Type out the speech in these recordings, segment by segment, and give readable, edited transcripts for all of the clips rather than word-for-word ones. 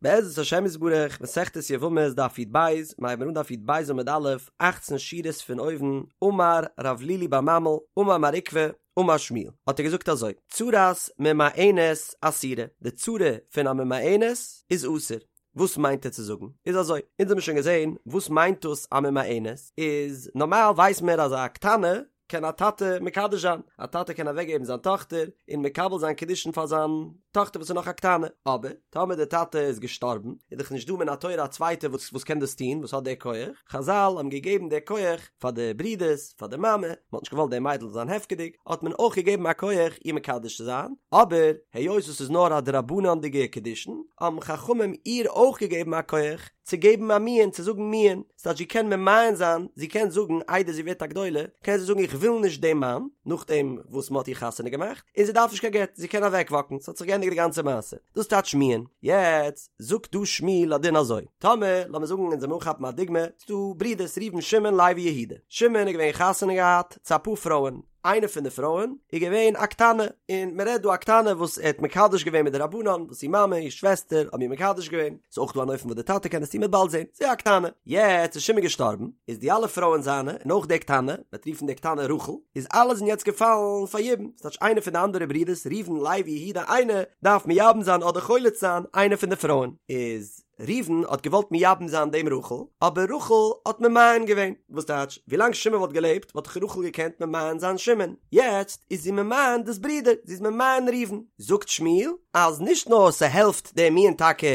בעזרת השם יתברך, מסכת יבמות דף י"ב, מיר הייבן אן דף י"ב עמוד א', אכצן שורות פון אויבן, אמר רב לילי בר ממל, אמר מר עוקבא, אמר שמואל, האט ער געזאגט אזוי, צרת ממאנת אסורה, די צרה פון א ממאנת איז אסור. וואס מיינט ער צו זאגן? איז אזוי, אונז האבן שוין געזען וואס מיינט דאס א ממאנת, איז נארמאל ווייסט מען אז א קטנה קען א טאטע מקדש זיין, א טאטע קען אוועקגעבן זיין טאכטער און מקבל זיין קידושין פאר זיין טאכטער וואס איז נאך א קטנה, אבער טאמער דער טאטע איז געשטארבן איז דאך נישט דא מן התורה א צווייטער וואס וואס קען דאס טון, וואס האט די כח, חזל האבן געגעבן די כח פאר די ברידערס, פאר די מאמע, מען האט נישט געוואלט די מיידל זאל זיין הפקר'דיג, האט מען אויך געגעבן א כח איר מקדש צו זיין, אבער היות עס איז נאר א דרבנן'דיגע קידושין, האבן חכמים איר אויך געגעבן א כח צו געבן א מיאון, צו זאגן מיאון. ס'טייטש זי קען ממאן זיין, זי קען זאגן איידער זי ווערט א גדולה, קען זי זאגן איך וויל נישט דעם מאן, נאכדעם וואס מ'האט איר חתונה געמאכט, און זי דארף נישט קיין גט, זי קען אוועקוואקן, ס'האט זיך געענדיגט די גאנצע מעשה. דאס טייטש מיאון. יעצט זאגט דא שמואל א דין אזוי, טאמער, לאמיר זאגן אונז וועלן אנכאפן א דוגמא, ס'דא ברידערס ראובן שמעון לוי יהודה, שמעון איז געווען חתונה געהאט צו אפאר פרויען, איינע פון די פרויען איז געווען א קטנה, און מען רעדט דא א קטנה וואס ער האט מקדש געווען מדרבנן, וואס איר מאמע, איר שוועסטער, האבן איר מקדש געווען, ס'איז אויך דא אן אופן וואס די טאטע קען עס טון, מ'וועט באלד זען, ס'איז א קטנה. יעצט איז שמעון געשטארבן, איז די אלע פרויען זיינע, און אויך די קטנה, מ'וועט רופן די קטנה רחל, איז אלע זענען יעצט געפאלן פאר יבום, ס'טייטש איינער פון די אנדערע ברידערס, ראובן, לוי, יהודה, איינער דארף מייבם זיין אדער חולץ זיין איינע פון די פרויען, איז. ראובן האט געוואלט מייבם זיין דעם רחל, אבער רחל האט ממאן געווען, וואס טייטש, ווילאנג שמעון וואלט געלעבט וואלט דאך רחל געקענט ממאן זיין שמעון, יעצט איז זי ממאן דאס ברודער, זי איז ממאן ראובן. זאגט שמואל אז נישט נאר ס'העלפט דער מיאון טאקע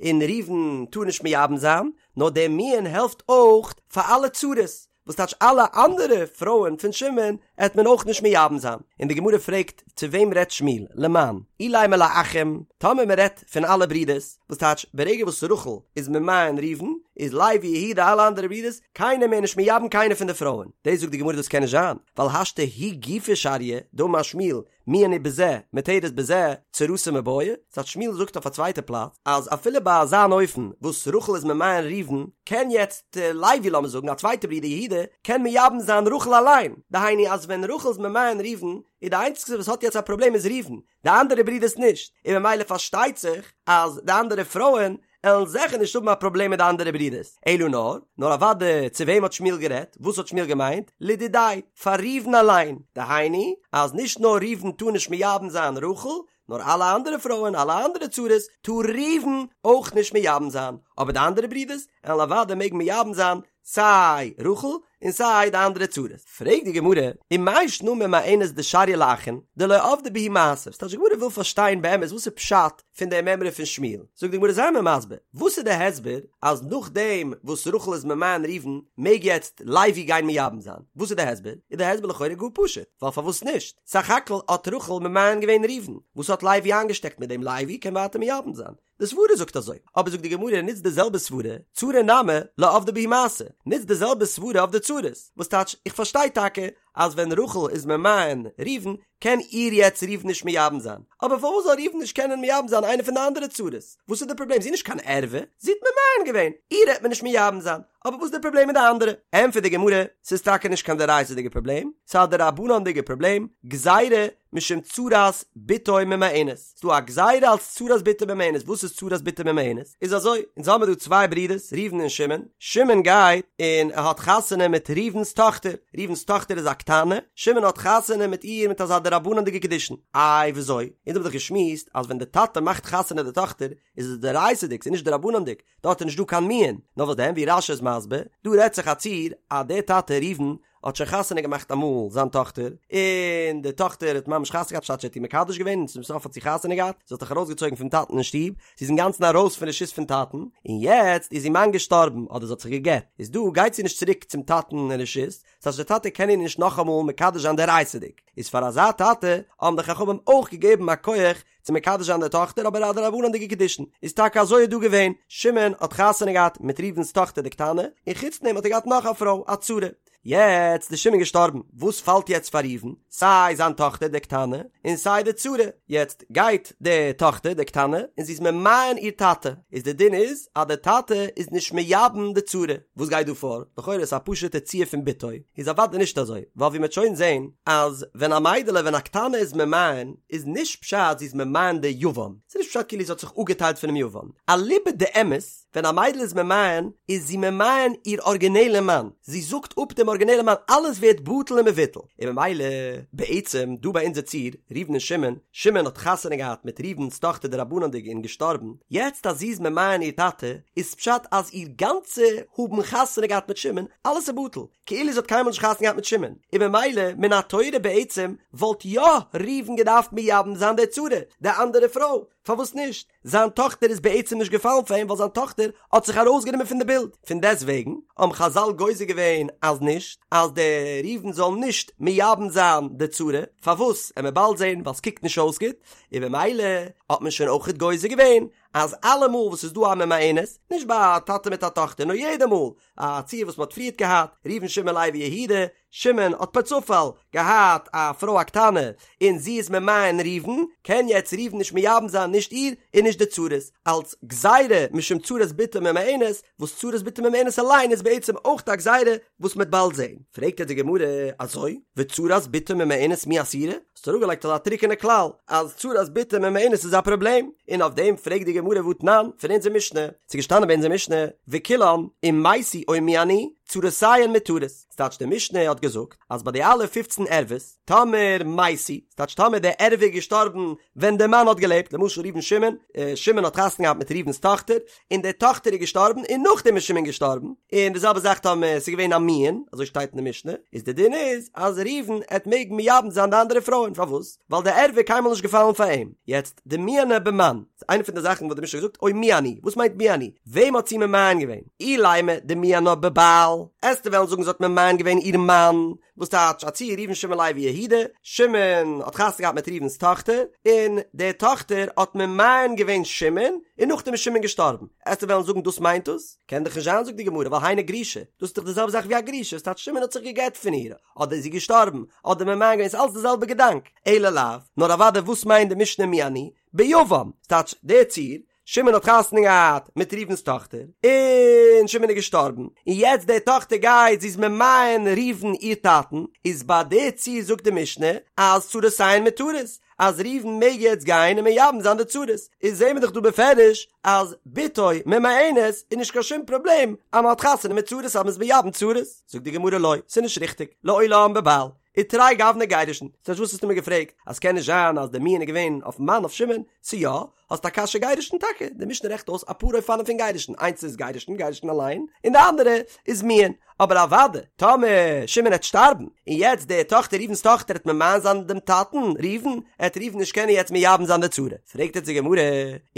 און ראובן טאר נישט מייבם זיין, נאר דער מיאון העלפט אויך פאר אלע צרות, וואס טייטש אלע אנדערע פרויען פון שמעון עט מען אויך נישט מייבם זיין, און די גמרא פרעגט צו וועם רעדט שמואל, למאן, אילימא לאחים, טאמער מען רעדט פון אלע ברידערס, וואס טייטש ברגע וואס רחל איז ממאן ראובן, איז לוי יהודה אלע אנדערע ברידערס, קיינער מער נישט מייבם קיינע פון די פרויען, דאס זאגט די גמרא דאס קען נישט זיין, ווייל השתא היא גופה שריא, דאמר שמואל, מיאון הוא בזה, מותרת בזה, צרתה מיבעיא, ס'טייטש שמואל זאגט אויף א צווייטע פלאץ, אז אפילו ביי אזא אן אופן וואס רחל איז ממאן ראובן, קען יעצט לוי לאמיר זאגן א צווייטע ברודער יהודה, קען מייבם זיין רחל אליין, דהיינו אז ווען רחל איז ממאן ראובן, איז די איינציגסטע וואס האט יעצט א פראבלעם איז ראובן, די אנדערע ברודערס נישט, און ממילא פארשטייט זיך אז די אנדערע פרויען עלן זעכער נישט האבן א פראבלעם מיט די אנדערע ברודערס, אלא נאר, נאר אוודאי צו וועם האט שמואל גערעדט, וואס האט שמואל געמיינט, לדידיה, פאר ראובן אליין, דהיינו, אז נישט נאר ראובן טאר נישט מייבם זיין רחל, נאר אלע אנדערע פרויען, אלע אנדערע צרות, טאר ראובן אויך נישט מייבם זיין, אבער די אנדערע ברודערס, עלן אוודאי מעגן מייבם זיין סיי רחל און סיי די אנדערע צרות. פרעגט די גמרא, ומאי שנא ממאנת דשריא לאחין, דלא עבדא בהו מעשה, ס'טייטש די גמרא וויל פארשטיין באמת וואס איז פשט פון די מימרא פון שמואל, זאגט די גמרא זיי מיר מסביר, וואס איז די הסבר אז נאכדעם וואס רחל איז ממאן ראובן מעג יעצט לוי גיין מייבם זיין, וואס איז די הסבר? איז די הסבר לכאורה גאר פשוט, ווייל פארוואס נישט? סך הכל האט רחל ממאן געווען ראובן, וואס האט לוי איינגעשטעקט מיט דעם לוי קען ווייטער מייבם זיין, די סברה זאגט אזוי, אבער זאגט די גמרא נוץ די זעלבע סברה, צרה נמי לא עבדא בהו מעשה, נוץ די זעלבע סברה אויף די צרות, וואס טייטש איך פארשטיי טאקע אז ווען רחל איז ממאן ראובן קען איר יעצט ראובן נישט מייבם זיין, אבער פארוואס זאל ראובן נישט קענען מייבם זיין איינע פון די אנדערע צרות? וואס איז די פראבלעם? זי איז נישט קיין ערווה, זי האט ממאן געווען, איר העט מען נישט מייבם זיין, אבער וואס איז די פראבלעם מיט די אנדערע? ענטפערט די גמרא, ס'איז טאקע נישט קיין דאורייתא'דיגע פראבלעם, ס'איז א דרבנן'דיגע פראבלעם, גזירה משום צרת בתו ממאנת, ס'דא א גזירה אלס צרת בתו ממאנת, וואס איז צרת בתו ממאנת? איז אזוי, אונז האמיר דא צוויי ברידערס, ראובן און שמעון, שמעון גייט און ער האט חתונה מיט ראובן'ס טאכטער, ראובן'ס טאכטער איז א קטנה, שמעון האט חתונה מיט איר מיט אזא דרבנן'דיגע קידושין, איי וויאזוי? אונז האבן דאך געשמועסט אז ווען די טאטע מאכט חתונה די טאכטער איז עס דאורייתא'דיג, ס'איז נישט דרבנן'דיג, דארט איז נישט דא קיין מיאון, נאר וואס דען ווי רש"י איז מסביר, דא רעדט זיך א ציור אז דער טאטע ראובן האט שוין חתונה געמאכט אמאל זיין טאכטער, און די טאכטער האט ממש חתונה געהאט, פשט ער האט איר מקדש געווען און צום סוף האט זי חתונה געהאט, זי האט זיך ארויסגעצויגן פון טאטן אין שטוב, זי איז אינגאנצן ארויס פון רשות פון טאטן, און יעצט איז איר מאן געשטארבן אדער זי האט זיך גע'גט, איז דא גייט זי נישט צוריק צום טאטן אין רשות, ס'הייסט דער טאטע קען איר נישט נאכאמאל מקדש זיין דאורייתא'דיג, איז פאר אזא טאטע האבן די חכמים אויך געגעבן א כח צו מקדש זיין די טאכטער אבער א דרבנן'דיגע קידושין איז טאקע אזוי איז דא געווען, שמעון האט חתונה געהאט מיט ראובן'ס טאכטער די קטנה, און חוץ דעם האט ער געהאט נאך א פרוי א צרה. יעצט איז שמעון געשטארבן, וואס פאלט יעצט פאר ראובן? סיי זיין טאכטער די קטנה, און סיי די צרה, יעצט גייט די טאכטער די קטנה און זי איז ממאן איר טאטע, איז די דין איז אז די טאטע איז נישט מייבם די צרה, וואס גייט דא פאר? לכאורה איז א פשוטע ציור פון בתו, איז אוודאי נישט אזוי, ווייל ווי מ'עט שוין זען אז ווען א מיידעלע ווען א קטנה איז ממאן איז נישט פשט זי איז ממאן די יבם, ס'איז נישט פשט כאילו זי האט זיך אפגעטיילט פונעם יבם, אליבא דאמת ווען א מיידל איז ממאן איז זי ממאן איר ארגינעלע מאן, זי זאגט אפ דעם ארגינעלע מאן, אלעס ווערט בטל ומבוטל, און ממילא בעצם דא ביי אונזער ציור, ראובן און שמעון, שמעון האט חתונה געהאט מיט ראובן'ס טאכטער דרבנן'דיג און געשטארבן, יעצט אז זי איז ממאן איר טאטע, איז פשט אז איר גאנצע האבן חתונה געהאט מיט שמעון, אלעס איז בטל, כאילו זי האט קיינמאל נישט חתונה געהאט מיט שמעון, און ממילא מן התורה בעצם וואלט יא ראובן געדארפט מייבם זיין די צרה, די אנדערע פרוי, פארוואס נישט? זיין טאכטער איז בעצם נישט געפאלן פאר אים ווייל זיין טאכטער האט זיך ארויסגענומען פון די בילד, פון דעסט וועגן האבן חזל גוזר געווען אז נישט, אז דער ראובן זאל נישט מייבם זיין די צרה, פארוואס? עמיר באלד זען ווייל ס'קוקט נישט אויס גוט, און במילא האט מען שוין אויכעט גוזר געווען אז אלעמאל וואס ס'איז דא א ממאנת, נישט ביי א טאטע מיט א טאכטער נאר יעדע מאל א ציור וואס מ'האט פריערט געהאט, ראובן שמעון לוי יהודה, שמעון האט פערצופאל געהאט א פרוי א קטנה און זי איז ממאן ראובן, קען יעצט ראובן נישט מייבם זיין נישט איר און נישט די צרות, אלץ גזירה משום צרת בתו ממאנת, וואס צרת בתו ממאנת אליין איז בעצם אויך א גזירה וואס מ'עט באלד זעהן. פרעגט יעצט די גמרא, אזוי? וצרת בתו ממאנת מי אסירא? האסט אראפגעלייגט אזא טרוקענע כלל אז צרת בתו ממאנת איז א פראבלעם, און אויף דעם פרעגט די גמרא והתנן פון אונזער משנה, ס'איז געשטאנען ביי אונזער משנה, וכולן אם מתו או מיאנו, צרותיהן מותרות. ס'טייטש די משנה האט געזאגט אז ביי די אלע פופצן ערוות, טאמער מתו, ס'טייטש טאמער די ערווה איז געשטארבן ווען די מאן האט געלעבט, למשל ראובן שמעון, שמעון האט חתונה געהאט מיט ראובן'ס טאכטער, און די טאכטער איז געשטארבן און נאכדעם איז שמעון געשטארבן, און די זעלבע זאך טאמער ס'איז געווען א מיאון, אזוי שטייט אין די משנה, איז די דין איז אז ראובן עט מעגן מייבם זיין די אנדערע פרויען, פארוואס? ווייל די ערווה איז קיינמאל נישט געפאלן פאר אים. יעצט, דמיאנה במאן, ס'איז איינע פון די זאכן וואס די משנה האט געזאגט, או מיאנו, וואס מיינט מיאנו? וועם האט זי ממאן געווען? אילימא דמיאנה בבעל, עסטו וועלן זאגן זי האט ממאן געווען איר מאן, וואס טייטש א ציור ראובן שמעון לוי יהודה, שמעון האט חתונה געהאט מיט ראובן'ס טאכטער, און די טאכטער האט ממאן געווען שמעון, און נאכדעם איז שמעון געשטארבן, עסטו וועלן זאגן דאס מיינט דאס? קען דאך נישט זיין זאגט די גמרא ווייל היינו גרושה, דאס איז דאך די זעלבע זאך ווי א גרושה, וואס טייטש שמעון האט זיך גע'גט פון איר, אדער איז זי געשטארבן, אדער ממאן געווען, ס'איז אלץ די זעלבע געדאנק, אלא לאו, נאר אוודאי וואס מיינט די משנה מיאנו? ביבם, ס'טייטש דער ציור, שמעון האט חתונה געהאט מיט ראובן'ס טאכטער, און שמעון איז געשטארבן, און יעצט די טאכטער גייט, זי איז ממאן ראובן איר טאטן, איז ביי די ציור זאגט די משנה אז צרותיהן מותרות, אז ראובן מעג יעצט גיין און מייבם זיין די צרות, איז זעהן מיר דאך דא בפירוש אז בתו ממאנת איז נישט קיין שום פראבלעם אז מען האט חתונה מיט צרות אז מען איז מייבם צרות, זאגט די גמרא לא, ס'איז נישט ריכטיג, לעולם בבעל. ותרי גווני גירושין, ס'הייסט וואס האסטו מיר געפרעגט אז קען נישט זיין אז די מיאון איז געווען אויפן מאן אויף שמעון, ס'איז יא, האסט א קשיא גירושין טאקע, די משנה רעכנט אויס אפאר אופנים פון גירושין, איינס איז גירושין, גירושין אליין, און די אנדערע איז מיאון, אבער אוואדע, טאמער שמעון העט שטארבן, און יעצט די טאכטער ראובן'ס טאכטער העט ממאן זיין דעם טאטן, ראובן, העט ראובן נישט קענען יעצט מייבם זיין די צרה, פרעגט יעצט די גמרא,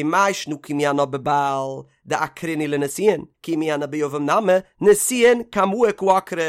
ומאי שנא כי מיאנה בבעל, דעקרינהו לנישואין, כי מיאנה ביבם נמי, נישואין קמאי קא עקרה.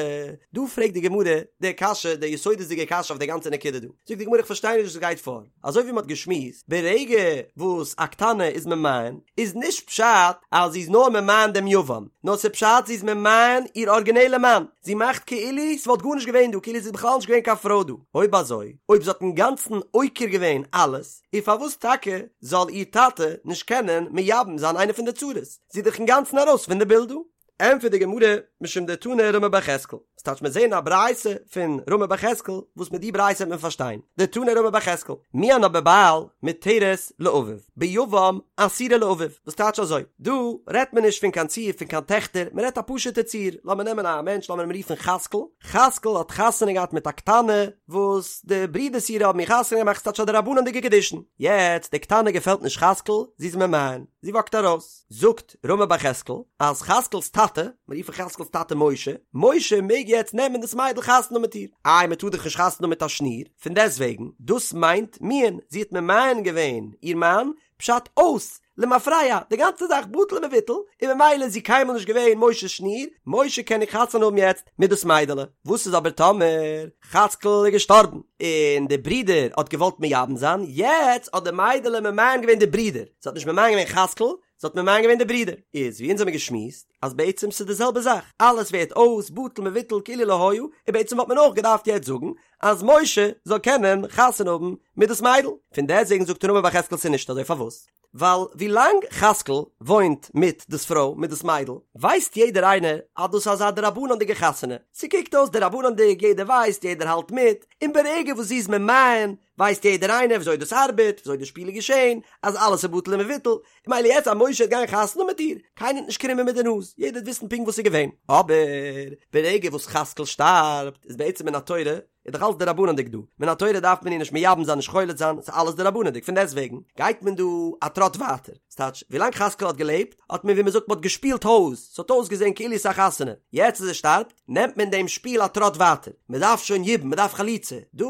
דא פרעגט די גמרא די קשיא, די יסודות'דיגע קשיא אויף די גאנצע נקודה דא. זאגט די גמרא איך פארשטיי נישט וואס גייט פאר. אזוי ווי מ'האט געשמועסט, ברגע וואס א קטנה איז ממאן, איז נישט פשט אז זי איז נאר ממאן דעם יבם, נאר ס'איז פשט זי איז ממאן איר ארגינעלע מאן. זי מאכט כאילו ס'וואלט גארנישט געווען דא, כאילו ס'איז בכלל נישט געווען קיין פרוי דא. אויב אזוי, אויב זי האט אינגאנצן עוקר געווען אלעס, און פארוואס טאקע זאל איר טאטע נישט קענען מייבם זיין איינע פון די צרות? זי איז דאך אינגאנצן ארויס פון די בילד דא. ענטפערט די גמרא, משום דתני רמי בר יחזקאל, ס'טייטש מיר זעהן א ברייתא פון רמי בר יחזקאל, וואס מיט די ברייתא וועט מען פארשטיין, דתני רמי בר יחזקאל, מיאנה בבעל מותרת לאביו, ביבם אסורה לאביו, וואס טייטש אזוי, דא רעדט מען נישט פון קיין ציור פון קיין טעכטער, מען רעדט א פשוטע ציור, לאמיר נעמען א מענטש לאמיר אים רופן חזקאל, חזקאל האט חתונה געהאט מיט א קטנה, וואס די ברידערס אירע האבן איר חתונה געמאכט ס'טייטש א דרבנן'דיגע קידושין, יעצט די קטנה געפעלט נישט חזקאל, זי איז ממאן, זי וואקט ארויס, זאגט רמי בר יחזקאל אז חזקאל'ס טאטע, מיר רופן חזקאל'ס טאטע משה, משה מעג יעצט נעמען דאס מיידל חתונה האבן מיט איר, איי מען טאר דאך נישט חתונה האבן מיט א שניר, פון דעסטוועגן, דאס מיינט מיאון, זי האט ממאן געווען איר מאן, פשט אויס, למפרע, די גאנצע זאך בטל ומבוטל, און ממילא איז זי קיינמאל נישט געווען משה'ס שניר, משה קען איר חתונה האבן יעצט מיט דאס מיידעלע. וואס איז אבער טאמער חאצקל איז געשטארבן, און די ברודער האט געוואלט מייבם זיין, יעצט האט די מיידעלע ממאן געווען די ברודער, זי האט נישט ממאן געווען חאצקל, זי האט ממאן געווען די ברודער. איז ווי אונז האמיר געשמועסט אז בעצם ס'איז די זעלבע זאך, אלעס ווערט אויס, בטל מבוטל כאילו לא היה, און בעצם וואלט מען אויך געדארפט יעצט זאגן אז משה זאל קענען חתונה האבן מיט דאס מיידל. פון דעסטוועגן זאגט רמי בר יחזקאל ס'איז נישט אזוי, פארוואס? ווייל ווי לאנג חזקאל וואוינט מיט דאס פרוי, מיט דאס מיידל, ווייסט יעדער איינער אז דאס איז אזא דרבנן'דיגע חתונה, ס'קוקט אויס דרבנן'דיג, יעדער ווייסט, יעדער האלט מיט, און ברגע וואס זי איז ממאן, ווייסט יעדער איינער וויאזוי דאס ארבעט, וויאזוי די שפיל איז געשען, אז אלעס איז בטל ומבוטל, און מילא יעצט אז משה וועט גיין חתונה מיט איר, קיינער וועט נישט קרימען מיט די נאז, יעדער וועט וויסן פונקט וואס איז געווען. אבער ברגע וואס חזקאל שטארבט, איז בעצם מן התורה, איז דאך אלעס דרבנן'דיג דא, מן התורה דארף מען איר נישט מייבם זיין נישט חולץ זיין, ס'איז אלעס דרבנן'דיג, פון דעסטוועגן גייט מען דא א טראט ווייטער, ס'טייטש, ווילאנג חזקאל האט געלעבט, האט מען ווי מ'זאגט מ'האט געשפילט הויז, ס'האט אויסגעזען כאילו ס'איז א חתונה, יעצט אז ער שטארבט, נעמט מען דעם שפיל א טראט ווייטער, מ'דארף שוין יבום, מ'דארף חליצה, דא,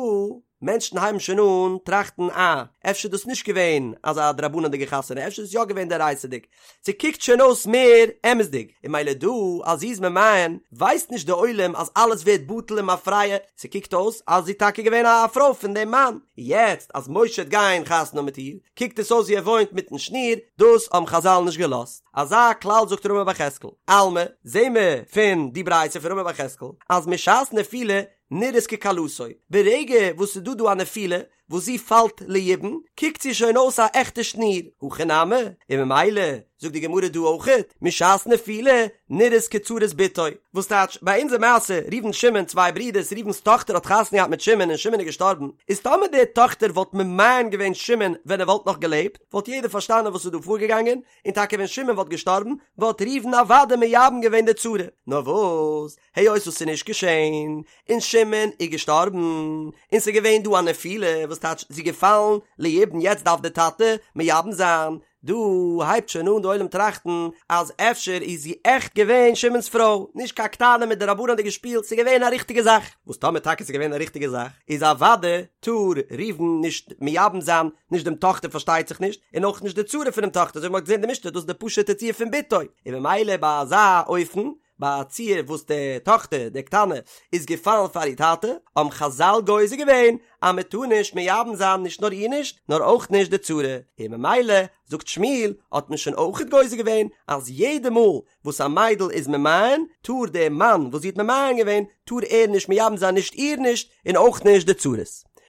מענטשן הייבן שוין אן טראכטן אה, אפשר איז דאס נישט געווען אזא דרבנן'דיגע חתונה, אפשר איז עס יא געווען דאורייתא'דיג, ס'קוקט שוין אויס מער אמת'דיג, און מילא דא אז זי איז ממאן, ווייסט נישט די עולם אז אלעס ווערט בטל למפרע, ס'קוקט אויס אז זי איז טאקע געווען א פרוי פון דעם מאן, יעצט אז משה וועט גיין חתונה מיט איר, קוקט עס אויס ווי ער וואוינט מיטן שניר, דאס האבן חזל נישט געלאזט. אזא כלל זאגט רמי בר יחזקאל, אלמא, זעהן מיר פון די ברייתא פון רמי בר יחזקאל, אז משעת נפילה נראית ככלתו, ברגע וואס ס'איז דא דא א נפילה, וואס זי פאלט ליבום, קוקט זי שוין אויס א עכטע שניר, הכא נמי, און ממילא זאגט די גמרא דא אויכעט, משעת נפילה נראית כצרת בתו, וואס טייטש, ביי אונזער מעשה, ראובן שמעון, צוויי ברידערס, ראובן'ס טאכטער האט חתונה געהאט מיט שמעון און שמעון איז געשטארבן, איז טאמער די טאכטער וואלט ממאן געווען שמעון ווען ער וואלט נאך געלעבט, וואלט יעדער פארשטאנען וואס איז דא פארגעגאנגען, און טאקע ווען שמעון וואלט געשטארבן, וואלט ראובן אוודאי מייבם געווען די צרה, נאר וואס, היות וואס ס'איז נישט געשען, און שמעון איז געשטארבן, און ס'איז געווען דא א נפילה, וואס טייטש זי איז געפאלן ליבום יעצט דארף די טאטע מייבם זיין, דא הייבט שוין אן די עולם טראכטן אז אפשר איז זי עכט געווען שמעון'ס פרוי, נישט קיין קטנה מיט דרבנן'דיגע שפיל, ס'איז געווען א ריכטיגע זאך, וואס טאמער טאקע ס'איז געווען א ריכטיגע זאך, איז אוודאי טאר ראובן נישט מייבם זיין, נישט דעם טאכטער פארשטייט זיך נישט, און אויך נישט די צרה פונעם טאכטער, אזוי ווי מ'האט געזען די משנה, דאס איז די פשוט'ע ציור פון בתו, און ממילא ביי אזא אופן ביי א ציור וואס די טאכטער, די קטנה, איז געפאלן פאר איר טאטע, האבן חזל גוזר געווען אז מען טאר נישט מייבם זיין נישט נאר איר נישט, נאר אויך נישט די צרה, און ממילא, זאגט שמואל, האט מען שוין אויכעט גוזר געווען אז יעדע מאל וואס א מיידל איז ממאן, טאר דער מאן וואס זי האט ממאן געווען, טאר ער נישט מייבם זיין נישט איר נישט, און אויך נישט די צרות.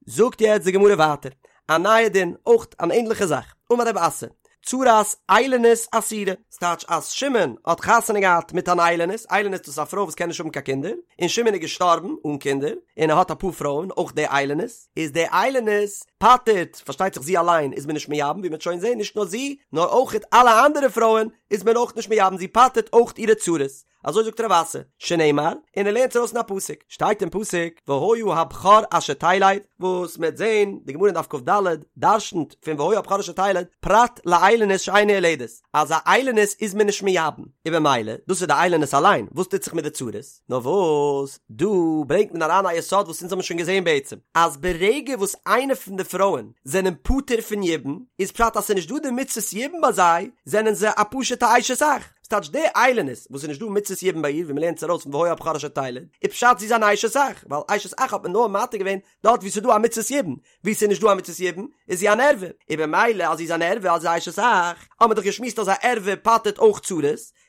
זאגט יעצט די גמרא ווייטער, א נייע דין, אויך אן ענדליכע זאך, אמר רב אסי, צרת איילונית אסורה, ס'טייטש אז שמעון האט חתונה געהאט מיט אן איילונית, איילונית דאס איז א פרוי וואס קען נישט האבן קיין קינדער, און שמעון איז געשטארבן אן קינדער, און ער האט אפאר פרויען, אויך די איילונית, איז די איילונית פטר'ט, פארשטייט זיך זי אליין איז מען נישט מייבם, ווי מ'וועט שוין זען, נישט נאר זי, נאר אויכעט אלע אנדערע פרויען איז מען אויך נישט מייבם, זי פטר'ט אויך אירע צרות. אזוי זאגט רב אסי, שנאמר, און ער לערנט ארויס אין א פסוק, שטייט אין פסוק, והיה הבכור אשר תלד, וואס מ'וועט זען, די גמרא אין דף כ"ד דרשנ'ט פון והיה הבכור אשר תלד, פרט לאיילונית שאינה יולדת, אז א איילונית איז מען נישט מייבם, און במילא, דאס איז די איילונית אליין, וואס טוט זיך מיט די צרות? נאר וואס, דא ברענגט מען אריין א יסוד וואס אונז האבן שוין געזען בעצם, אז ברגע וואס איינע פון די פרויען זענען פטור פון יבום, איז פשט אז ס'איז נישט דא די מצות יבום ביי זיי, זענען זיי א פשוט'ע אשת אח. ס'טייטש די איילונית וואס איז נישט דא מצות יבום ביי איר ווי מ'לערנט עס ארויס פון והיה הבכור אשר תלד, איז פשט זי איז אן אשת אח, ווייל אשת אח האט מען נאר מתיר געווען דארט וואו ס'איז דא א מצות יבום, וואו ס'איז נישט דא א מצות יבום איז זי אן ערווה, און במילא אז זי איז אן ערווה אז זי איז אשת אח, האט מען דאך געשמועסט אז א ערווה פטר'ט אויך צרות,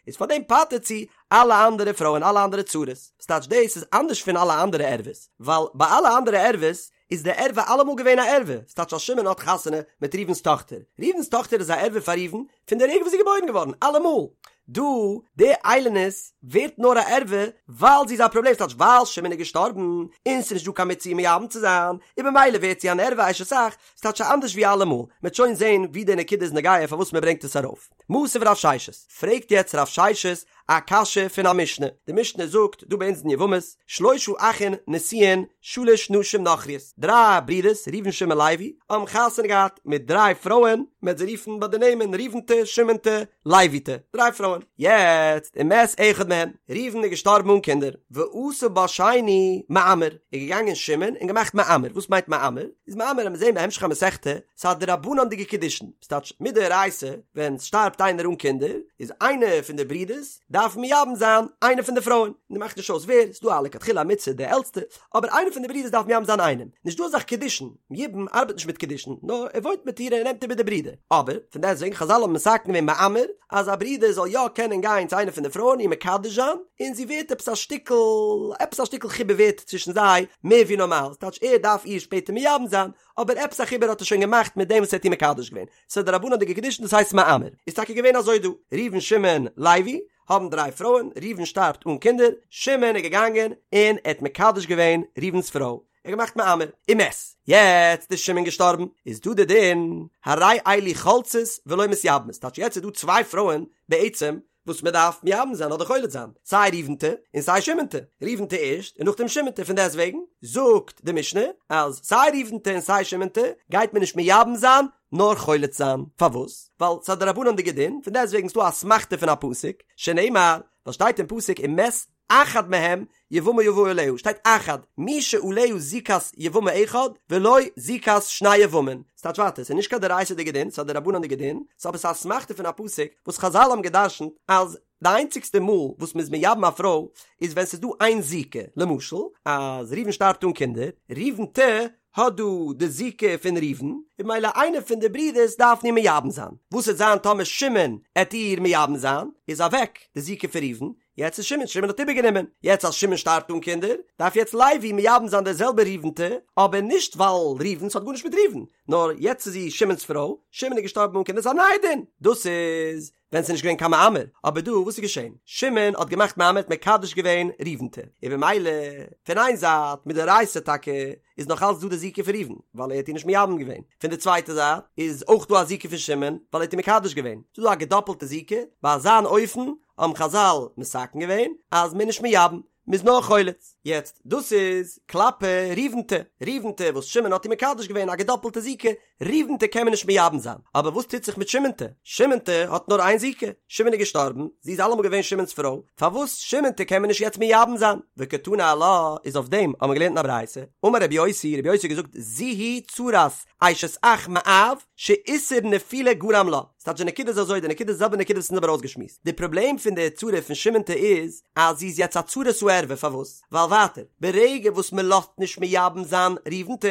איז פארדעם פטר'ט זי אלע אנדערע פרויען אלע אנדערע צרות, ס'טייטש דאס איז אנדערש פון אלע אנדערע ערוות, ווייל ביי אלע אנדערע ערוות איז די ערווה אלעמאל געווען א ערווה, ס'טייטש אז שמעון האט חתונה מיט ראובן'ס טאכטער, ראובן'ס טאכטער איז א ערווה פאר ראובן פון די רגע וואס זי איז געבוירן געווארן, אלעמאל. דא, די איילונית ווערט נאר א ערווה ווייל זי איז א פראבלעם, ס'טייטש ווייל שמעון איז געשטארבן און ס'איז נישט דא קיין מצוה מייבם צו זיין, און במילא ווערט זי אן ערווה אשת אח, ס'טייטש אנדערש ווי אלעמאל, מ'עט שוין זען ווי די נקודה איז נוגע פארוואס מ'ברענגט עס ארויף. מתיב רב ששת, פרעגט יעצט רב ששת א קשיא פון א משנה, די משנה זאגט דא ביי אונז אין יבמות, שלשה אחין נשואין שלש נשים נכריות, דריי ברידערס ראובן שמעון לוי האבן חתונה געהאט מיט דריי פרויען, מען וועט זיי רופן ביי די נעמען ראובנ'טע, שמעונ'טע, לוי'טע, דריי פרויען, יעצט ומת אחד מהן, ראובן איז געשטארבן אן קינדער, ועשה בה שני מאמר, איז געגאנגען שמעון און געמאכט מאמר, וואס מיינט מאמר? איז מאמר וועט מען זען בהמשך המסכתא, ס'איז א דרבנן'דיגע קידושין, ס'טייטש מדאורייתא ווען ס'שטארבט איינער אן קינדער, איז איינער פון די ברידערס. דארף מייבם זיין איינע פון די פרויען, און מאכט נישט אויס ווער, ס'דא א לכתחילה א מצוה די עלטסטע, אבער איינע פון די ברידערס דארף מייבם זיין איינעם, נישט דא אזאך קידושין, יבום ארבעט נישט מיט קידושין, נאר ער וואוינט מיט איר און ער נעמט איבער די ברודער, אבער פון דעסטוועגן חזל האבן מתקן געווען מאמר אז א ברודער זאל יא קענען גיין צו איינע פון די פרויען איר מקדש זיין, און זי ווערט עפעס א שטיקל, עפעס א שטיקל חיבור ווערט צווישן זיי מער ווי נארמאל, ס'טייטש ער דארף איר שפעטער מייבם זיין, אבער עפעס א חיבור האט ער שוין געמאכט מיט דעם וואס ער האט איר מקדש געווען, ס'איז א דרבנן'דיגע קידושין דאס הייסט מאמר, איז טאקע געווען אזוי דא, ראובן שמעון לוי האבן דריי פרויען, ראובן שטארבט אן קינדער, שמעון איז געגאנגען און ער האט מקדש געווען ראובן'ס פרוי, ער האט געמאכט מאמר, ומת, יעצט איז שמעון געשטארבן, איז דא די דין, הרי אלו חולצות ולא מתייבמות, טייטש יעצט איז דא צוויי פרויען בעצם וואס מען דארף מייבם זיין אדער חולץ זיין, סיי ראובנ'טע און סיי שמעונ'טע, ראובנ'טע ערשט און נאכדעם שמעונ'טע, פון דעסט וועגן זאגט די משנה אז סיי ראובנ'טע און סיי שמעונ'טע גייט מען נישט מייבם זיין נאר חולץ זיין, פארוואס? ווייל ס'איז א דרבנן'דיגע דין, פון דעסט וועגן איז דא א אסמכתא פון א פסוק, שנאמר, וואס שטייט אין פסוק ומת אחד מהם יבמה יבא עליה, שטייט אחד, מי שעליה זיקת יבמה אחד ולא זיקת שני יבמין, ס'טייטש ווייטער, ס'איז נישט קיין דאורייתא'דיגע דין, ס'איז א דרבנן'דיגע דין, ס'איז אבער ס'איז א אסמכתא פון א פסוק וואס חזל האבן גע'דרש'נט אז די איינציגסטע מאל וואס מ'איז מייבם א פרוי איז ווען ס'איז דא איין זיקה, למשל אז ראובן שטארבט אן קינדער, ראובנ'טע האט דא די זיקה פון ראובן, און ממילא איינער פון די ברידערס דארפן איר מייבם זיין, וואס וועט זיין טאמער שמעון עט איר מייבם זיין, איז אוועק די זיקה פון ראובן, יעצט איז שמעון, שמעון האט איבערגענומען, יעצט אז שמעון שטארבט אן קינדער, דארף יעצט לוי מייבם זיין די זעלבע ראובנ'טע, אבער נישט ווייל ראובן, ס'האט גארנישט מיט ראובן, נאר יעצט איז זי שמעון'ס פרוי, שמעון איז געשטארבן אן קינדער, ס'איז א נייע דין, דאס איז ווען ס'איז נישט געווען קיין מאמר, אבער דא וואס איז געשען? שמעון האט געמאכט מאמר, האט מקדש געווען ראובנ'טע, און במילא פון איין זייט מדאורייתא טאקע איז נאך אלץ דא די זיקה פון ראובן, ווייל ער האט איר נישט מייבם געווען, פון די צווייטע זייט איז אויך דא א זיקה פון שמעון, ווייל ער האט איר מקדש געווען, ס'איז דא א געדאפלטע זיקה, ביי אזאן אופן האבן חזל מתקן געווען אז מ'איז נישט מייבם, מ'איז נאר חולץ. יעצט דאס איז כלפי ראובנ'טע, ראובנ'טע וואס שמעון האט איר מקדש געווען א געדאפלטע זיקה, ראובנ'טע קען מען נישט מייבם זיין, אבער וואס טוט זיך מיט שמעונ'טע? שמעונ'טע האט נאר איין זיקה, שמעון איז געשטארבן, זי איז אלעמאל געווען שמעון'ס פרוי, פארוואס שמעונ'טע קען מען נישט יעצט מייבם זיין? וקתני עלה, איז אויף דעם האבן מיר געלערנט אין א ברייתא, אמר רבי יוסי, רבי יוסי האט געזאגט, זו היא צרת אשת אח מאב, שאיסור נפילה גרם לה. ס'טייטש די נקודה איז אזוי, די נקודה איז די זעלבע נקודה וואס אונז האבן ארויסגעשמועסט. די פראבלעם פון די צרה פון שמעונ'טע איז, אז זי איז יעצט א צרת הערווה, פארוואס? ווייל ווייטער, ברגע וואס מען לאזט נישט מייבם זיין ראובנ'טע,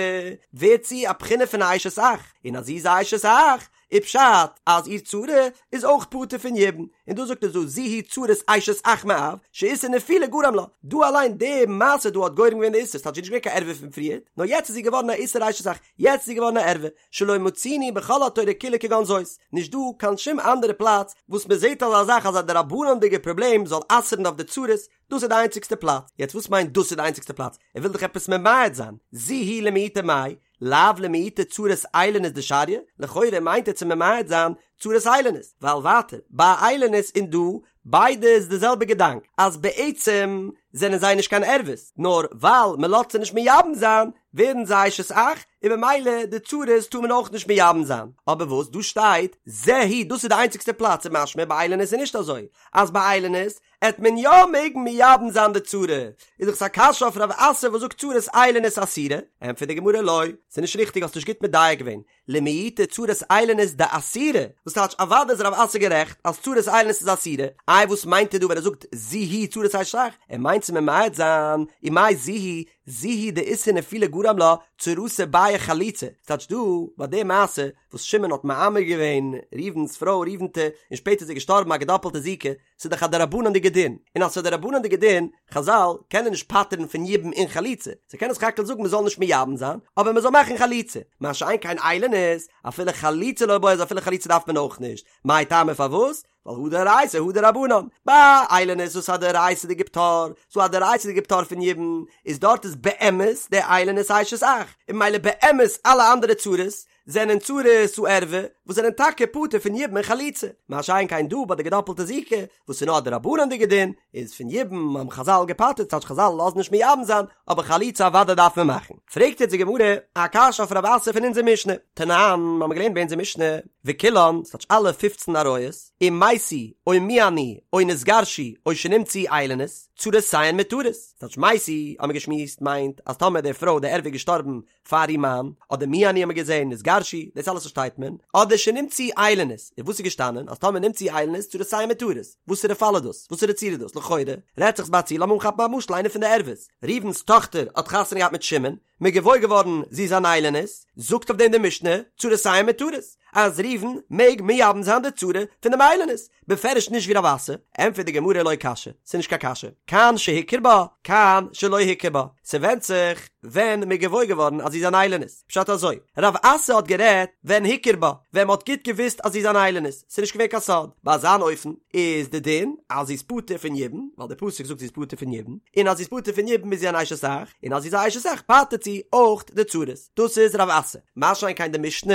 ווערט זי א בחינה פון א אשת אח, און אז זי איז א אשת אח, איז פשט אז איר צרה איז אויך פטור פון יבום, און דא זאגט ער זו היא צרת אשת אח מאב, שאיסור נפילה גרם לה, דא אליין די מעשה דא האט גורם געווען די איסור, ס'טייטש זי איז נישט געווען קיין ערווה פון פריער, נאר יעצט איז זי געווארן א איסור אשת אח, יעצט איז זי געווארן א ערווה, שלא מצינו בכל התורה כולה כגון זאת, נישט דא קיין שום אנדערע פלאץ וואס מען זעט אזא זאך אז א דרבנן'דיגע פראבלעם זאל אסר'ן אויף די צרות, דאס איז די איינציגסטע פלאץ. יעצט וואס מיינט דאס איז די איינציגסטע פלאץ? ער וויל דאך עפעס ממעט זיין. זו היא למעוטי מאי, לאו למעוטי צרת איילונית דשריא, לכאורה מיינט ער צו ממעט זיין צרת איילונית, ווייל ווייטער ביי איילונית און דא ביידע איז די זעלבע געדאנק אז בעצם זענען זיי נישט קיין ערוות, נאר ווייל מען לאזט זיי נישט מייבם זיין ווערן זיי אשת אח, און במילא די צרות טאר מען אויך נישט מייבם זיין. אבער וואס דא שטייט זה היא דאס איז די איינציגסטע פלאץ איז משמע ביי איילונית איז נישט אזוי אז ביי איילונית עט מען יא מעגן מייבם זיין די צרה, איז דאך עס א קשיא אויף רב אסי וואס זאגט צרת איילונית אסירה, ענטפערט די גמרא לא, ס'איז נישט ריכטיג האסט נישט גוט מדייק געווען, למעוטי צרת איילונית דאסירה, וואס טייטש אוודאי איז רב אסי גערעכט אז צרת איילונית איז אסירה, איי וואס מיינט ער דא ווען ער זאגט זו היא צרת אשת אח, ער מיינט צו ממעט זיין, ומאי זו היא, זו היא דאיסור נפילה גרם לה, צרתה בעיא חליצה, ס'טייטש דא ביי די מעשה וואס שמעון האט מאמר געווען ראובן'ס פרוי ראובן'טע און שפעטער איז זי געשטארבן א געדאפלטע זיקה, ס'איז דאך א דרבנן'דיגע דין, און אז ס'איז א דרבנן'דיגע דין, חזל קענען נישט פטר'ן פון יבום און חליצה, זיי קענען סך הכל זאגן מ'זאל נישט מייבם זיין, אבער מ'זאל מאכן חליצה, מה שאין כן איילונית, אפילו חליצה לא בעיא אז אפילו חליצה דארף מען אויך נישט, מאי טעמא פארוואס? ווייל הא דאורייתא הא דרבנן, ביי איילונית וואס א דאורייתא'דיגע פטור, ס'דא א דאורייתא'דיגע פטור פון יבום, איז דארט איז באמת די איילונית אשת אח, און ממילא באמת אלע אנדערע צרות זענען צרות הערווה וואס זענען טאקע פטור פון יבום און חליצה, מה שאין כן דא ביי די געדאפלטע זיקה וואס איז נאר א דרבנן'דיגע דין, איז פון יבום האבן חזל געפטר'ט ס'טייטש חזל לאזן נישט מייבם זיין, אבער חליצה אוודאי דארף מען מאכן. פרעגט יעצט די גמרא א קשיא אויף רב אסי פון אונזער משנה, תנן, מ'האמיר געלערנט ביי אונזער משנה, וכולן, ס'טייטש אלע פופצן עריות, אם מתו או מיאנו או נתגרשו או שנמצאו איילונית, צרותיהן מותרות, ס'טייטש מתו האמיר געשמועסט מיינט אז טאמער די פרוי די ערווה איז געשטארבן פאר איר מאן, אדער מיאנו האמיר געזען, נתגרשו, דאס אלעס פארשטייט מען, אדער. שנמצאו איילונית, און וואס איז געשטאנען אז טאמער נמצאו איילונית צרותיהן מותרות, וואסערע פאל איז דאס? וואסערע צרה איז דאס? לכאורה רעדט זיך ביי א ציור, לאמיר אנכאפן א משל איינע פון די ערוות, ראובן'ס טאכטער האט חתונה געהאט מיט שמעון, מ'איז געוואויר געווארן זי איז אן איילונית, זאגט אויף דעם די משנה, צרותיהן מותרות, אז ראובן מעג מייבם זיין די צרה פון דעם איילונית, בפירוש נישט ווי רב אסי, ענטפערט די גמרא לא קשיא, ס'איז נישט קיין קשיא, כאן שהכיר בה, כאן שלא הכיר בה, ס'ווענדט זיך ווען מ'איז געוואויר געווארן אז זי איז אן איילונית, פשט אזוי, רב אסי האט גערעדט ווען הכיר בה, ווען מ'האט גוט געוואוסט אז זי איז אן איילונית, ס'איז נישט געווען קיין סוד, ביי אזאן אופן איז די דין אז זי איז פטור פון יבום, ווייל די פסוק זאגט זי איז פטור פון יבום, און אז זי איז פטור פון יבום איז זי אן אשת אח, און אז זי איז א אשת אח פטר'ט זי אויך די צרות, דאס איז רב אסי. מה שאין כן די משנה,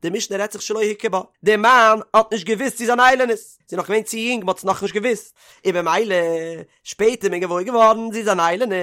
די משנה רעדט זיך שלא הכיר בה, די מאן האט נישט געוואוסט זי איז אן איילונית, זי איז נאך געווען צו יונג מ'האט עס נאכנישט געוואוסט, און במילא שפעטער איז מען געוואויר געווארן זי איז אן איילונית,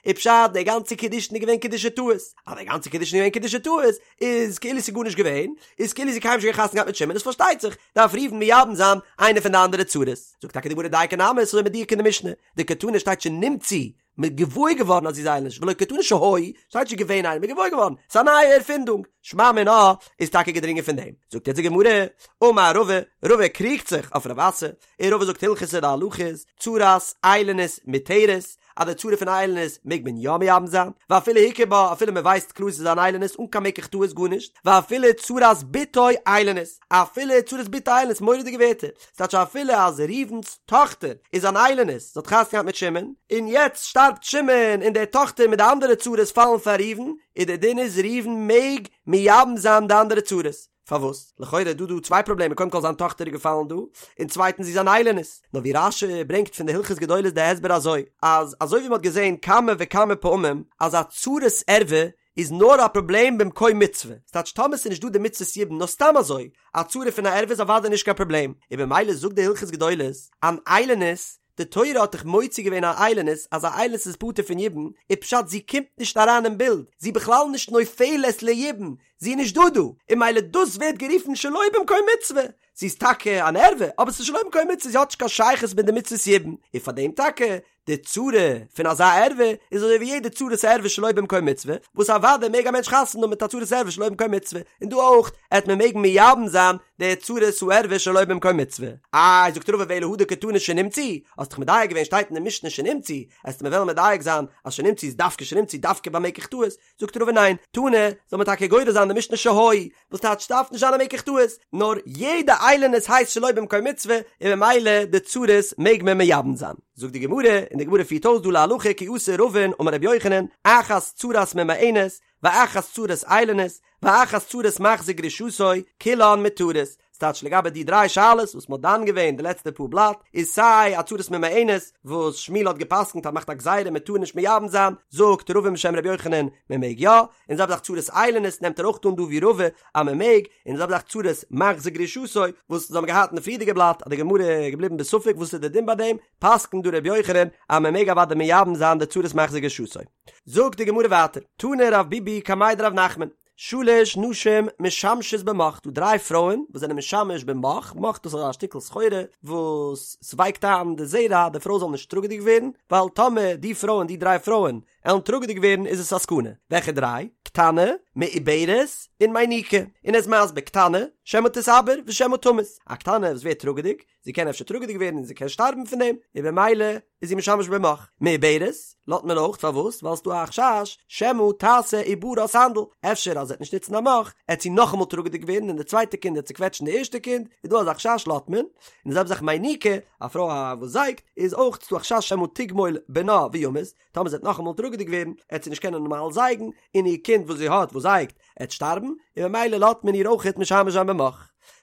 איז פשט די גאנצע קידושין איז געווען קידושי טעות, אז די גאנצע קידושין איז געווען קידושי טעות איז כאילו ס'איז גארנישט געווען, איז כאילו זי קיינמאל נישט געווען חתונה געהאט מיט שמעון איז פארשטייט זיך דארף ראובן מייבם זיין איינע פון די אנדערע צרות, זאגט טאקע די גמרא דייקא נמי ס'איז אזוי מדויק אין די משנה, דקתני שטייט שנמצאו מ'איז געוואויר געווארן אז זי איז איילונית, ולא קתני שהיו, שטייט נישט געווען איילונית, מ'איז געוואויר געווארן, ס'איז א נייע ערפינדונג, שמע מינה איז טאקע געדרינגען פון דעם. זאגט יעצט די גמרא, אמר רבא, רבא קריגט זיך אויף רב אסי, און רבא זאגט הלכתא די הלכה איז, צרת איילונית מותרת, אז די צרה פון איילונית מעג מען יא מייבם זיין, ואפילו הכיר בה, אפילו מען ווייסט קלאר ס'איז אן איילונית אן קיין מקח טעות גארנישט, ואפילו צרת בתו איילונית, אפילו צרת בתו איילונית, מורא'דיגע ווערטער, ס'טייטש אפילו אז ראובן'ס טאכטער איז אן איילונית, זי האט חתונה געהאט מיט שמעון, און יעצט שטארבט שמעון און די טאכטער מיט די אנדערע צרות פאלן פאר ראובן, איז די דין איז ראובן מעג מייבם זיין די אנדערע צרות. פארוואס? לכאורה איז דא דא צוויי פראבלעמען, קודם כל זיין טאכטער איז געפאלן דא, און צווייטנס זי איז אן איילונית. נאר ווי רש"י ברענגט פון די הלכות גדולות די הסבר אזוי, אז אזוי ווי מ'האט געזען כמה וכמה פעמים אז א צרת ערווה איז נאר א פראבלעם במקום מצוה, ס'טייטש טאמער ס'איז נישט דא די מצוות יבום נאר סתם אזוי, א צרה פון א ערווה איז אוודאי נישט קיין פראבלעם, און במילא זאגט די הלכות גדולות, אן איילונית, די תורה האט דאך מוציא געווען א איילונית אז א איילונית איז פטור פון יבום, איז פשט זי קומט נישט אריין אין בילד, זי בכלל נישט נופלת ליבום, זי איז נישט דא דא, און ממילא דאס ווערט גערופן שלא במקום מצוה, זי איז טאקע אן ערווה אבער ס'איז שלא במקום מצוה זי האט נישט קיין שייכות מיט די מצוות יבום, און פאר דעם טאקע די צרה פון אזא ערווה איז אזוי ווי יעדע צרת ערווה שלא במקום מצוה, וואס אוודאי מעג א מענטש חתונה האבן מיט א צרת ערווה שלא במקום מצוה, און דא אויך עט מען מעגן מייבם זיין די צרת הערווה שלא במקום מצוה. איי זאגט רבא ואלא הא דקתני שנמצאו, האסט דאך מדייק געווען שטייט אין די משנה שנמצאו, עסטו מיר וועלן מדייק זיין אז שנמצאו איז דווקא שנמצאו דווקא ביי מקח טעות, זאגט רבא ניין, תנא, זאל מען טאקע גורס זיין די משנה שהיו, וואס טייטש ס'דארף נישט זיין א מקח טעות, נאר יעדע איילונית הייסט שלא במקום מצוה, און ממילא די צרות מעג מען מייבם זיין. זאגט די גמרא, און די גמרא פירט אויס דא להלכה כי אתא רבין אמר רבי יוחנן, אחת צרת ממאנת, ואחת צרת איילונית, ואחת צרת מחזיר גרושתו, כולן מותרות, ס'טייטש לגבי די דריי שאלות וואס מ'האט דן געווען די לעצטע פאר בלאט, איז סיי א צרת ממאנת וואס שמואל האט געפסקנט אז מ'מאכט א גזירה מ'טאר נישט מייבם זיין, זאגט רבין בשם ר' יוחנן מ'מעג יא, און זעלבע זאך צרת איילונית נעמט ער אויך אן דא ווי רבא אז מ'מעג, און זעלבע זאך צרת מחזיר גרושתו וואס אונז האבן געהאט אין די פריערדיגע בלאט אז די גמרא איז געבליבן בספק וואס איז די דין ביי דעם, פסקנט דא ר' יוחנן אז מ'מעג אוודאי מייבם זיין די צרת מחזיר גרושתו. זאגט די גמרא ווייטער, תני רב ביבי קמיה דרב נחמן, שלש נשים משמשות במוך, דא דריי פרויען וואס זענען משמש במוך, מוך דאס איז א שטיקל סחורה וואס ס'ווייקט איין די זרע די פרוי זאל נישט טראגעדיג ווערן, ווייל טאמער די פרויען די דריי פרויען עלן טראגעדיג ווערן איז עס א סכנה, וועלכע דריי? קטנה, מעוברת, און מניקה, און ער איז מסביר קטנה, שמא תתעבר ושמא תמות, א קטנה וואס ווערט טראגעדיג, זי קען אפשר טראגעדיג ווערן און זי קען שטארבן פון דעם, און במילא איז זי משמש במוך. מעוברת, לאזט מען אויך, פארוואס? ווייל ס'דא א חשש שמא תעשה עוברה סנדל, אפשר אז זי וועט נישט נוצן א מוך, עט זי נאכאמאל טראגעדיג ווערן און די צווייטע קינד עט צוקוועטשן די ערשטע קינד, איז דא אזא חשש לאזט מען. און די זעלבע זאך מניקה, א פרוי וואס זייגט, איז אויך ס'דא א חשש שמא תגמול בנה וימות, טאמער זי וועט נאכאמאל טראגעדיג ווערן, עט זי נישט קענען נארמאל זייגן, און איר קינד וואס זי האט וואס זייגט, עט שטארבן, און ממילא לאזט מען איר אויכעט משמש זיין במוך.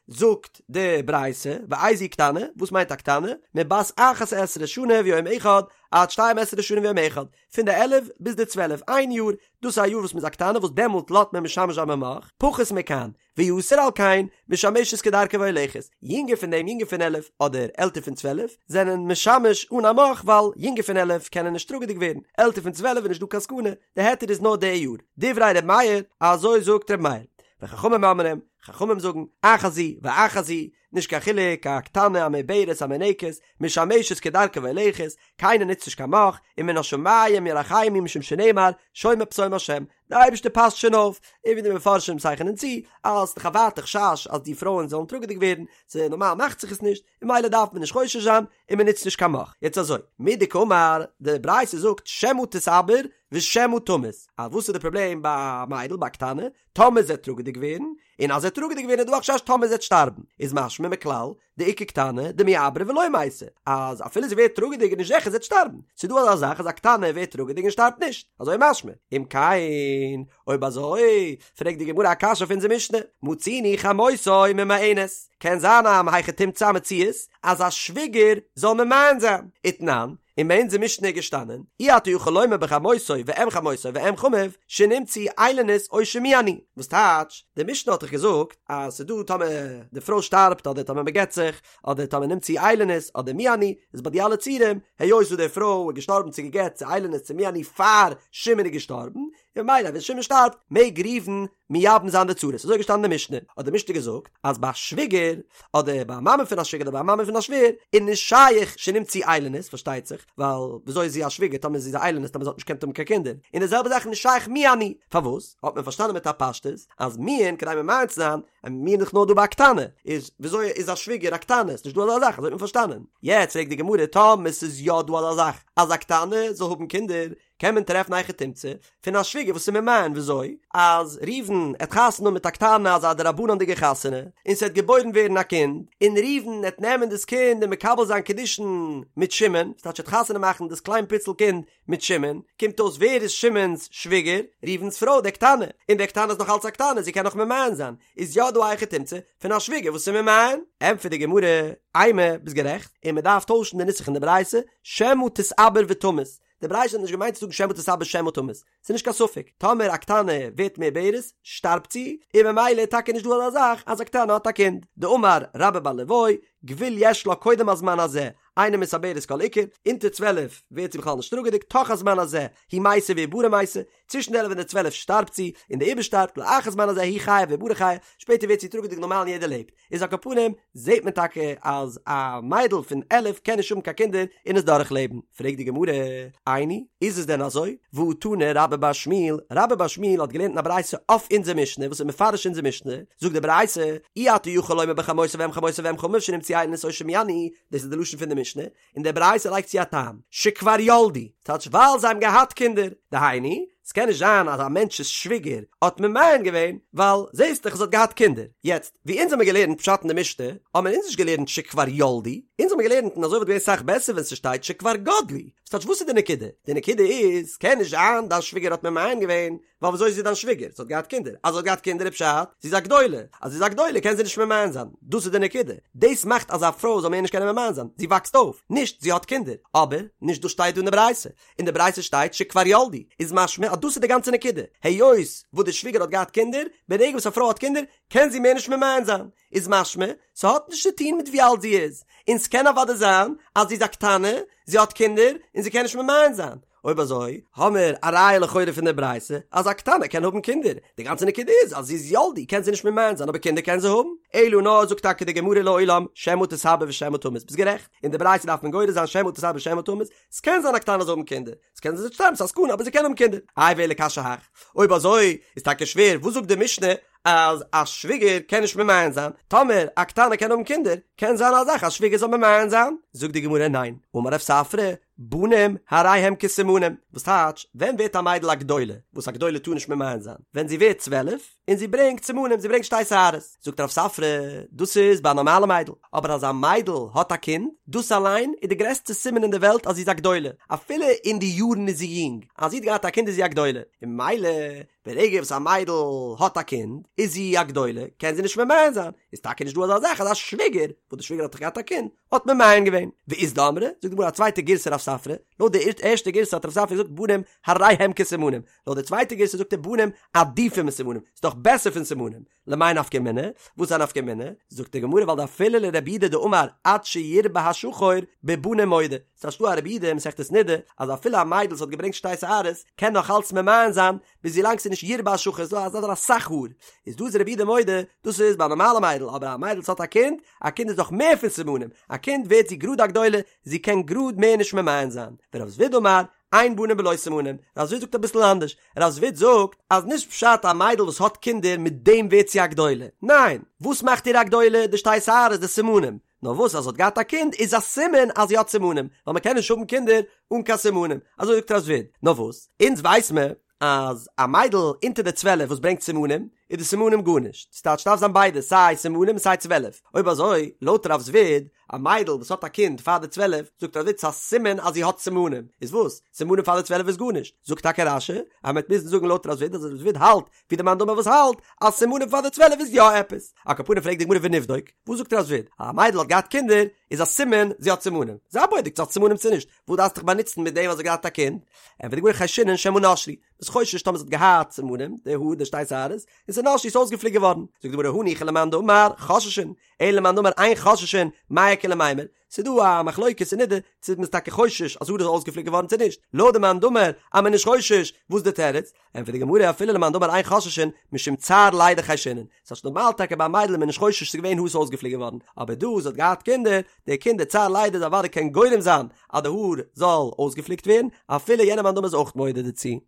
זאגט די ברייתא, ואיזו היא קטנה, וואס מיינט א קטנה? מבת אחת עשרה שנה ויום אחד, עד שתים עשרה שנה ויום אחד, פון די עלף ביז די צוועלף, איין יאר, דאס איז א יאר וואס מ'איז א קטנה וואס דעמאלט לאזט מען משמש זיין במוך, פחות מכאן, ויתר על כן, משמשת כדרכה והולכת, יונגער פון דעם יונגער פון עלף אדער עלטער פון צוועלף, זענען משמש אן א מוך ווייל יונגער פון עלף קענען נישט טראגעדיג ווערן, עלטער פון צוועלף איז נישט דא קיין סכנה, די היתר איז נאר די יאר. דברי ר' מאיר, אזוי זאגט ר' מאיר. וחכמים אומרים, חכמים זאגן, אחת זו ואחת זו, נישט קיין חילוק, א קטנה, א מעוברת, א מינקת, משמשת כדרכה והולכת, קיינער נוצט נישט קיין מוך, ומן השמים ירחמו משום שנאמר, שומר פתאום השם. די אייבערשטער פאסט שוין אויף, און ווי די מפרשים צייכענען צו, אז ס'דאך א ווייטע חשש אז די פרויען זאלן טראגעדיג ווערן, ס'איז נארמאל מאכט זיך עס נישט, און ממילא דארף מען נישט חושש זיין, און מען נוצט נישט קיין מוך. יעצט אזוי, מדקאמר, די ברייתא זאגט שמא תתעבר ושמא תמות, אז וואס איז די פראבלעם ביי א מיידל, ביי א קטנה, טאמער זי וועט טראגעדיג ווערן, און אז זי וועט טראגעדיג ווערן איז דא א חשש טאמער זי וועט שטארבן, איז משמע מכלל דאיכא קטנה דמיעברא ולא מתה, אז אפילו זי ווערט טראגעדיג איז נישט זיכער זי וועט שטארבן, ס'איז דא אזא זאך אז א קטנה ווערט טראגעדיג און שטארבט נישט, אזוי משמע, אם כן, אויב אזוי, פרעגט די גמרא א קשיא אויף אונזער משנה, מצינו חמותו ממאנת, קען זיין א מהיכי תמצא א מציאות אז א שוויגער זאל ממאן זיין, ותנן, און ביי אונזער משנה איז געשטאנען, אי אתה יכול לומר בחמותו ואם חמותו ואם חמיו, שנמצאו איילונית או שמיאנו. וואס טייטש, די משנה האט דאך געזאגט אז ס'איז דא טאמער די פרוי שטארבט אדער טאמער מ'גט זיך, אדער טאמער נמצאו איילונית אדער מיאנו, איז ביי די אלע ציורים, היות וואס די פרוי איז געשטארבן צו גע'גט צו איילונית צו מיאנו פאר שמעון איז געשטארבן, און ממילא ווען שמעון שטארבט מעג ראובן מייבם זיין די צרות, אזוי איז געשטאנען אין די משנה, האט די משנה געזאגט אז ביי א שוויגער, אדער ביי א מאמע פון א שוויגער אדער ביי א מאמע פון א שווער, איז נישט שייך שנמצאו איילונית, פארשטייט זיך, ווייל וויאזוי איז זי א שוויגער טאמער זי איז א איילונית טאמער זי האט נישט געקענט האבן קיין קינדער, און די זעלבע זאך איז נישט שייך מיאנו, פארוואס? האט מען פארשטאנען מיט א פשטות אז מיאון כדי ממאן צו זיין, און מיאון איז דאך נאר דא ביי א קטנה, איז וויאזוי איז א שוויגער א קטנה? ס'נישט דא אזא זאך, אזוי האט מען פארשטאנען. יעצט פרעגט די גמרא טאמער ס'איז יא דא אזא זאך אז א קטנה זאל האבן קינדער, קען מען טרעפן א היכי תמצא פון א שוויגער וואס איז ממאן וויאזוי אז ראובן עט חתונה האבן מיט א קטנה אזא דרבנן'דיגע חתונה און ס'עט געבוירן ווערן א קינד און ראובן עט נעמען דאס קינד און מקבל זיין קידושין מיט שמעון ס'טייטש עט חתונה מאכן דאס קליין פיצל קינד מיט שמעון קומט אויס ווער איז שמעון'ס שוויגער? ראובן'ס פרוי די קטנה און די קטנה איז נאך אלץ א קטנה זי קען נאך ממאן זיין איז יא דא א היכי תמצא פון א שוויגער וואס איז ממאן? ענטפערט די גמרא אימא ביסט גערעכט און מ'דארף טוישן די נוסח אין די ברייתא שמא תתעבר ותמות די ברייתא האט נישט געמיינט צו זאגן שמא תתעבר שמא תמות, ס'איז נישט קיין ספק, טאמער א קטנה ווערט מעוברת שטארבט זי, און ממילא איז טאקע נישט דא אזא זאך אז א קטנה האט א קינד, דאמר רבה בר ליואי, גבול יש לה קודם הזמן הזה, אינה מתעברת כל עיקר, אונטער 12 ווערט זי בכלל נישט טראגעדיג, תוך הזמן הזה, היא מתה ועוברה מתה, צווישן די עלף און די 12 שטארבט זי, און די עובר שטארבט, לאחר זמן הזה היא חיה ועוברה חיה, שפעטער ווערט זי טראגעדיג נארמאל און יעדער לעבט. איז על כל פנים זעהט מען טאקע אז א מיידל פון 11 קען נישט האבן קיין קינדער און עס דורכלעבן, פרעגט די גמרא, איני, איז עס דען אזוי? והא תנא רבה בר שמואל, רבה בר שמואל האט געלערנט אין א ברייתא אויף אונזער משנה וואס איז מפרש אונזער משנה, זאגט די ברייתא, אי אתה יכול לומר בחמותו ואם חמותו ואם חמיו שנמצאו איילונית או שמיאנו, דאס איז די לשון פון די משנה, און די ברייתא לייגט צו א טעם, שכבר ילדו, טייטש ווייל זיי האבן געהאט קינדער, דהיינו, ס'קען נישט זיין אז א מענטש'ס שוויגער האט ממאן געווען, ווייל זעסט דאך זי האט געהאט קינדער. יעצט, ווי אונז האמיר געלערנט פשט אין די משנה, האמיר אונז נישט געלערנט שכבר ילדו, אונז האמיר געלערנט און אזוי וואלט געווען סאך בעסער ווען ס'שטייט שכבר גדלו. ס'טייטש וואס איז די נקודה? די נקודה איז, ס'קען נישט זיין דיין שוויגער האט ממאן געווען, ווייל וויאזוי איז זי דיין שוויגער? זי האט געהאט קינדער. אז זי האט געהאט קינדער איז פשט, זי איז א גדולה. אז זי איז א גדולה קען זי נישט ממאן זיין. דאס איז די נקודה. דאס מאכט אז א פרוי זאל מער נישט קענען ממאן זיין. זי וואקסט אויף. נישט זי האט קינדער. אבער, נישט דאס שטייט דא אין די ברייתא. אין די ברייתא שטייט שכבר ילדו. איז משמע אז דאס איז די גאנצע נקודה. היות וואס די שוויגער האט געהאט קינדער, ברגע וואס א פרוי האט קינדער, קען זי מער נישט ממאן זיין. איז משמע, ס'האט נישט צו טון מיט ווי אלט זי איז. און ס'קען אוודאי זיין אז זי איז א קטנה, זי האט קינדער, און זי קען נישט ממאן זיין. אויב אזוי האמער א ראיה לכאורה פון די ברייתא אז א קטנה קען האבן קינדער, די גאנצע נקודה איז אז זי איז ילדו קען זי נישט ממאן זיין אבער קינדער קען זי האבן, אלא נאר זאגט טאקע די גמרא לעולם שמא תתעבר ושמא תמות ביסט גערעכט, אין די ברייתא דארף מען גורס זיין שמא תתעבר ושמא תמות, ס'קען זיין א קטנה זאל האבן קינדער, ס'קען זיין זי וועט שטארבן ס'איז א סכנה אבער זי קען האבן קינדער, איי ואלא קשיא הך, אויב אזוי איז טאקע שווער וואס זאגט די משנה אז א שוויגער קען נישט ממאן זיין, טאמער א קטנה קען האבן קינדער קען זיין א זאך א שוויגער זאל ממאן זיין, זאגט די גמרא ניין, אמר רב ספרא, בנים הרי הם כסימנים, וואס טייטש, ווען ווערט א מיידל א גדולה, וואס א גדולה טאר נישט ממאן זיין, ווען זי ווערט 12, און זי ברענגט סימנים, זי ברענגט שתי שערות, זאגט רב ספרא, דאס איז ביי א נארמאלע מיידל, אבער אז א מיידל האט א קינד, דאס אליין איז די גרעסטע סימן אין די וועלט אז זי איז א גדולה, אפילו אין די יארן איז זי יונג, אז זי האט געהאט א קינד איז זי א גדולה, און ממילא ברגע וואס א מיידל האט א קינד איז זי א גדולה, קען זי נישט ממאן זיין, איז טאקע נישט דא אזא זאך אז א שוויגער, וואס די שוויגער האט דאך געהאט א קינד, האט ממאן געווען. ואית דאמרי, זאגט די גמרא א צווייטע גירסא רב ספרא, לויט די ערשטע גירסא האט רב ספרא געזאגט בנים הרי הם כסימנים, לויט די צווייטע גירסא זאגט ער בנים עדיפים מסימנים, ס'איז דאך בעסער פון סימנים, למאי נפקא מינה? וואס איז א נפקא מינה? זאגט די גמרא ווייל דאפילו לרבי יהודה דאמר עד שירבה השחור בבנים מודה, ס'איז דא א רבי יהודה אין מסכת נדה אז אפילו א מיידל וואס האט געברענגט שתי שערות קען נאך אלץ ממאן זיין ביז ווילאנג ס'איז נישט ירבה השחור ס'איז דא אזא אסאך האר, איז דא איז רבי יהודה מודה דאס איז ביי א נארמאלע מיידל אבער א מיידל וואס האט א קינד, א קינד איז דאך מער פון סימנים, א קינד ווערט זי גראד א גדולה, זי קען גראד מער נישט ממאן זיין, ורב זביד אמר. אין בנים בלא סימנים, רב זביד זאגט אביסל אנדערש, רב זביד זאגט אז נישט פשט א מיידל וואס האט קינדער מיט דעם ווערט זי א גדולה, ניין, וואס מאכט איר א גדולה? די שתי שערות, די סימנים, נאר וואס אז זי האט געהאט א קינד איז א סימן אז זי האט סימנים, ווייל מען קען נישט האבן קינדער אן קיין סימנים, אזוי זאגט רב זביד, נאר וואס, אונז ווייס מען אז א מיידל אונטער די צוועלף וואס ברענגט סימנים, איז די סימנים גארנישט, ס'טייטש ס'דארף זיין ביידע סיי סימנים און סיי צוועלף, אויב אזוי לויט רב זביד, א מיידל וואס האט א קינד פאר די צוועלף, זאגט רב זביד ס'איז א סימן אז זי האט סימנים, איז וואס? סימנים פאר די צוועלף איז גארנישט, זאגט טאקע רש"י אז מ'וועט מוזן זאגן לויט רב זביד אז רב זביד האלט ווי די מאן דאמר וואס האלט אז סימנים פאר די צוועלף איז יא עפעס, על כל פנים פרעגט די גמרא ונבדוק, וואס זאגט רב זביד? אז א מיידל האט געהאט קינדער איז א סימן זי האט סימנים, זיי בודק צו זי האט סימנים צו נישט, וואס דארפסט דיך באנוצן מיט דעם אז זי האט געהאט א קינד? ענטפערט די גמרא חיישינן שמא נשרו, ביסט חושש טאמער זי האט געהאט סימנים, די האר, די שתי שערות, און ס'איז נשרו איז אויסגעפליקט געווארן. זאגט די גמרא הניחא למאן דאמר חוששין, אלא למאן דאמר אין חוששין, מאי איכא למימר, ס'איז דא א מחלוקת אין נידה צו מ'איז טאקע חושש אז האר איז אויסגעפליקט געווארן צו נישט, לויט די מאן דאמר אז מ'איז נישט חושש, וואס איז די תירוץ? ענטפערט די גמרא אפילו למאן דאמר אין חוששין משום צער לידה חיישינן, ס'הייסט נארמאל טאקע ביי א מיידל איז מען נישט חושש ס'איז געווען האר ס'איז אויסגעפליקט געווארן, אבער דא זי האט געהאט קינדער, די קינדער צער לידה איז אוודאי קען גורם זיין אז די האר זאל אויסגעפליקט ווערן, אפילו יענער מאן דאמר איז אויך מודה דערצו.